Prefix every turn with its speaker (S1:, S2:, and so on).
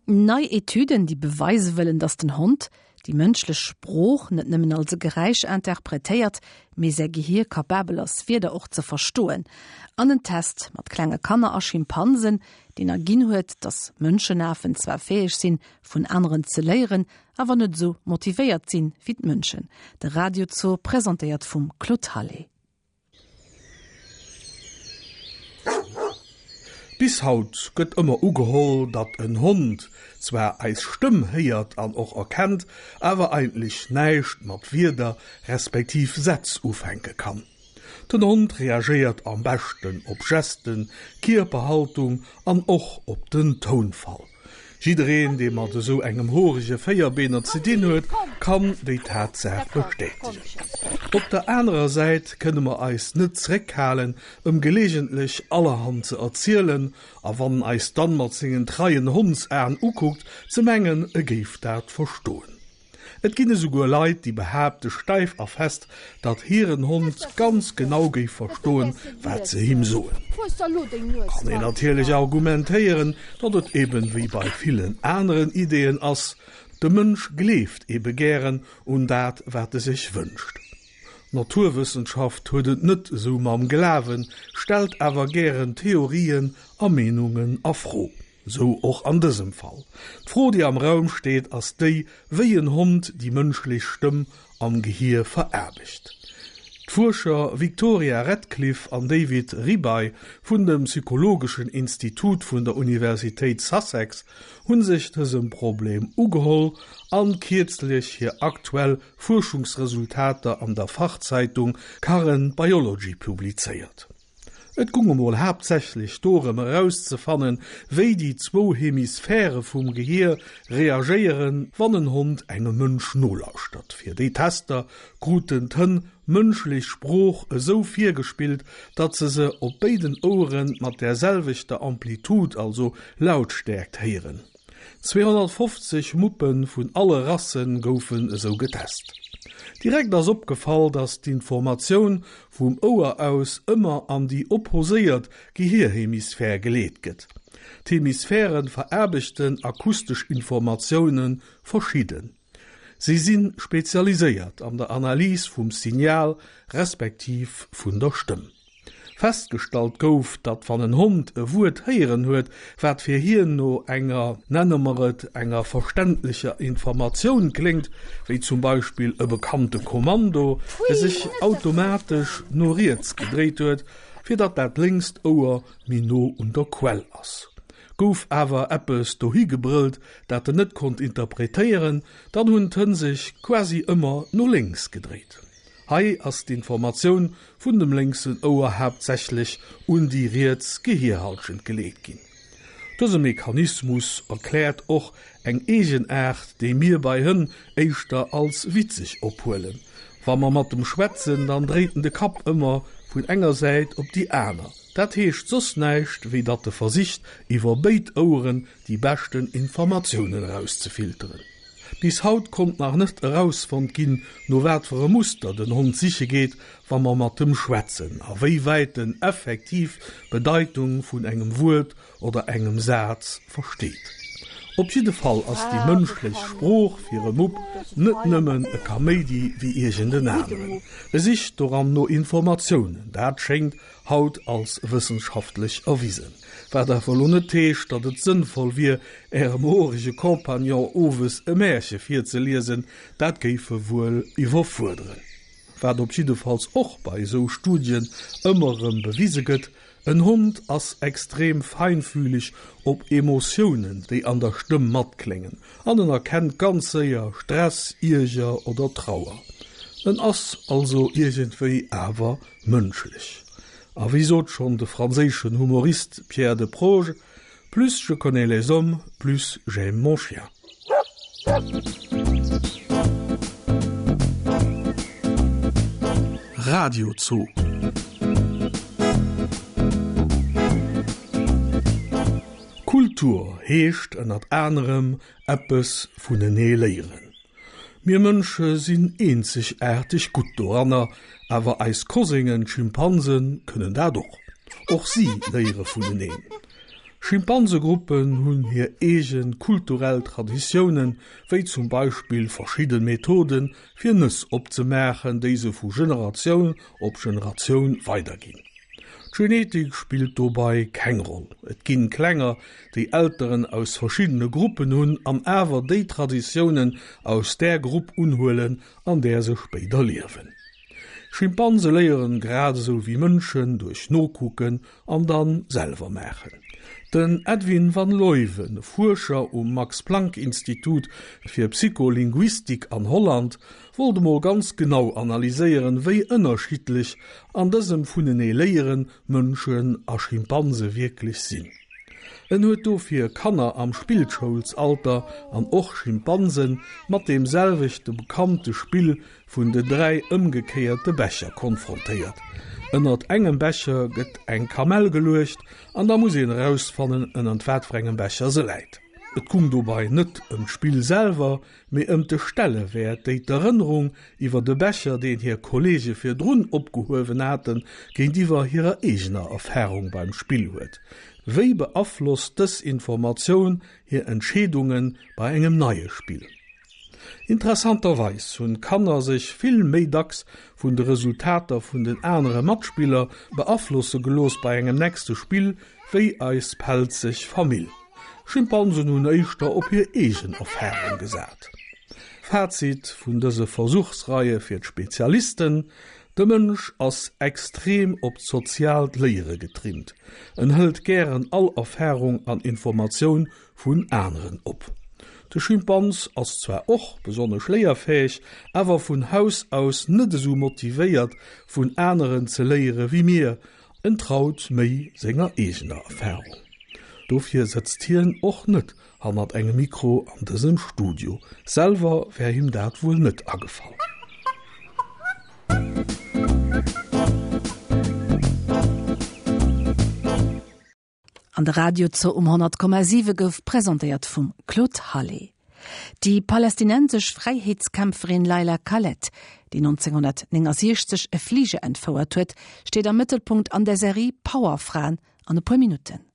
S1: Nei Etüden, déi beweise wëllen, datt den Hond déi mënschlech Sprooch net nëmmen als e Geräisch interpretéiert, mee säi Gehier kapabel ass, Wierder och ze verstoen. An en Test mat klenge Kanner a Schimpansen, deen erginn huet, datt Mënschenafen zwar fäeg sinn, vun aneren ze léieren, awer net esou motivéiert sinn, wéi d'Mënschen. De Radio Zoo presentéiert vum Claude Hallé.
S2: Bis haut gëtt ëmmer ugeholl, datt en Hond zwar eis Stëmm héiert an och erkennt, awer eigentlech näischt mat Wierder respektiv Sätz ufänke kann. Den Hond reagéiert am beschten op Gesten, Kierperhaltung an och op den Tounfall. Jiddereen, dee mat esou engem horege Véierbeener ze dinn huet, kann déi Tatsaach bestätegen. Op der anerer Säit kënne mer eis net zréckhalen, ëm geleegentlech allerhand ze erzielen, a wann en eis dann mat sengen treien Hondsaen ukuckt, ze mengen, e géif dat verstoen. Et ginn esouguer Leit, déi behaapte steif a fest, datt hiren Hond ganz genau géif verstoen, wat se him soen. Kann een natierlech argumentéieren, datt et eben wéi bei villen aneren Ideeën ass, de Mënsch gleeft ebe gären un dat, wat e sech wënscht. D'Naturwëssenschaft huet et net esou mam Glawen, stellt awer gären Theorien a Meenungen a Fro. Sou och an dësem Fall. D'Fro, déi am Raum steet, ass déi, wéi en Hond déi mënschlech Stëmm am Gehier veraarbecht. D'Fuerscher Victoria Redcliffe an David Ribay vun dem psychologeschen Institut vun der Universitéit Sussex hu sech dësem Problem ugeholl an kierzlech hir aktuell Fuerschungsresultater an der Fachzeitung Current Biology publizéiert. Et gung emol haaptsächlech dorëm erauszefannen, wéi déi zwou Hemisphäre vum Gehier reagéieren, wann en Hond engem Mënsch nolauschtert. Fir déi Tester kruten d'Hënn mënschlech Sprooch esou virgespillt, datt se se op béiden Ouere mat där selwechter Amplitude, also Lautstäerkt, héieren. 250 Muppe vun alle Rasse goufen esou getest. Direkt ass opgefall, datt d'Informatioun vum Ouer aus ëmmer an déi opposéiert Gehierhemisphär geleet gëtt. D'Hemisphäre veraarbechten akustesch Informatioune verschidden. Si si spezialiséiert an der Analys vum Signal respektiv vun der Stëmm. Festgestallt gouf, datt wann en Hond e Wuert héieren huet, wat fir hien no enger, nenne mer et, enger verständlecher Informatioun kléngt, wéi zum Beispill e bekannte Kommando, e sech automatesch no riets gedréit huet, fir datt dat lénkst Ouer méi no un der Quell ass. Gouf awer eppes dohi gebrëllt, dat en net konnt interpretéieren, dann hunn d'Hënn sech quasi ëmmer no lénks gedréit. Hei ass d'Informatioun vun dem lénksen Ouer haaptsächlech un déi riets Gehierhallschent geleet ginn. Dëse Mechanismus erkläert och eng Eegenaart, déi mir bei Hënn éischter als witzeg ophuelen. Wa mer mat em schwätzen, dann dréit en de Kapp ëmmer vun enger Säit op déi aner. Dat heescht soss näischt, wéi datt e versicht, iwwer béid Oueren déi beschten Informatiounen erauszefilteren. Bis haut konnt nach net erausfonnt ginn, no wat fir e Muster den Hond siche geet, wa mer mat em schwätzen, a wéi wäit en effektiv d'Bedeitung vun engem Wuert oder engem Saz versteet. Op jidde Fall ass déi mënschlech Sprooch fir e Mupp net nëmmen e Kaméidi wéi iergend en aneren. E sicht doran no Informatiounen, dat schéngt haut als wëssenschaftlech erwisen. Wat awer elo net heescht, datt et sënnvoll wier, Ärem horege Compagnon owes e Märche virzeliesen, dat géif e wuel iwwerfuerderen. Wat op jiddefalls och bei esou Studien ëmmer erëm bewise gëtt, En Hond ass extrem feinfühleg op Emotiounen, déi an der Stëmm matkléngen, an en erkennt ganz séier Stress, Ierger oder Trauer. En ass also iergendwéi awer mënschlech. A wéi sot schonn de franséischen Humorist Pierre Desproges, Plus je connais les hommes, plus j'aime mon chien.
S3: Radiozoo.
S2: Kultur heescht ënnert anerem eppes vunenee léieren. Mir Mënsche sinn eenzegaarteg gutt doranner, awer eis Koséngen, d'Schimpansen, kënnen dat och. Och si léiere vuneneen. Schimpansegruppen hunn hir eege kulturell Traditiounen, wéi zum Beispill verschidde Methoden, fir Nëss opzemaachen, déi se vu Generatioun op Generatioun weiderginn. D'Genetik spillt dobei keng Roll. Et ginn Klenger, déi Elteren aus verschiddene Gruppen hunn an awer déi Traditiounen aus där Grupp unhuelen, an där se spéider liewen. Schimpanse léieren grad esou wéi Mënschen duerch Nokucken an dann selwer maachen. Den Edwin van Leuven, Fuerscher um Max-Planck-Institut fir Psycholinguistik an Holland, wollt emol ganz genau analyséieren, wéi ënnerschiddlech an dësem vunenee léieren Mënschen a Schimpanse wierklech sinn. En huet dofir Kanner am Spillschoulsalter an och Schimpansen mat deem selwechte bekannte Spill vun den 3 ëmgekéierte Becher konfrontéiert. Ënnert engem Becher gëtt eng Kamell geluecht an da muss een erausfannen, ënnert wat fir engem Becher se läit. Et gung dobei net ëm d'Spill selwer, mee ëm de Stellewäert, déi d'Erënnerung iwwer de Becher, deen hir Kolleege virdrun opgehuewen haten, géintiwwer hirer eegener Erfarung beim Spill huet. Wéi beaflosst dës Informatioun hir Entscheedunge bei engem neie Spill? Interessanterweis hunn d'Kanner sech vill méi dacks vun de Resultater vun den anere Matspiller beaflosse gelooss bei engem nächste Spill wéi eis pelzeg Famill. Schimpansen hunn éischter op hir eegen Erfarung gesat. Fazit vun dëse Versuchsreie fir d'Spezialisten, De Mënsch ass extrem op d'soziaalt Léiere getrimmt. En hëlt gären all Erfarung an Informatioun vun aneren op. De Schimpans ass zwar och besonnesch léierfäeg, awer vun Haus aus net esou motivéiert vun aneren ze léiere wéi mir, en traut méi senger eegener Erfarung. Dofir sëtzt hien och net hannert engem Mikro an dësem Studio, selwer wär him dat wuel net agefall.
S1: An de Radio-Zoo um 100,7 gouf presentéiert vum Claude Hallé. Déi palästinensesch Fräiheetskämpferin Leila Khaled, déi 1969 e Fliger entfouert huet, steet am Mëttelpunkt an der Serie Powerfraen an e puer Minutten.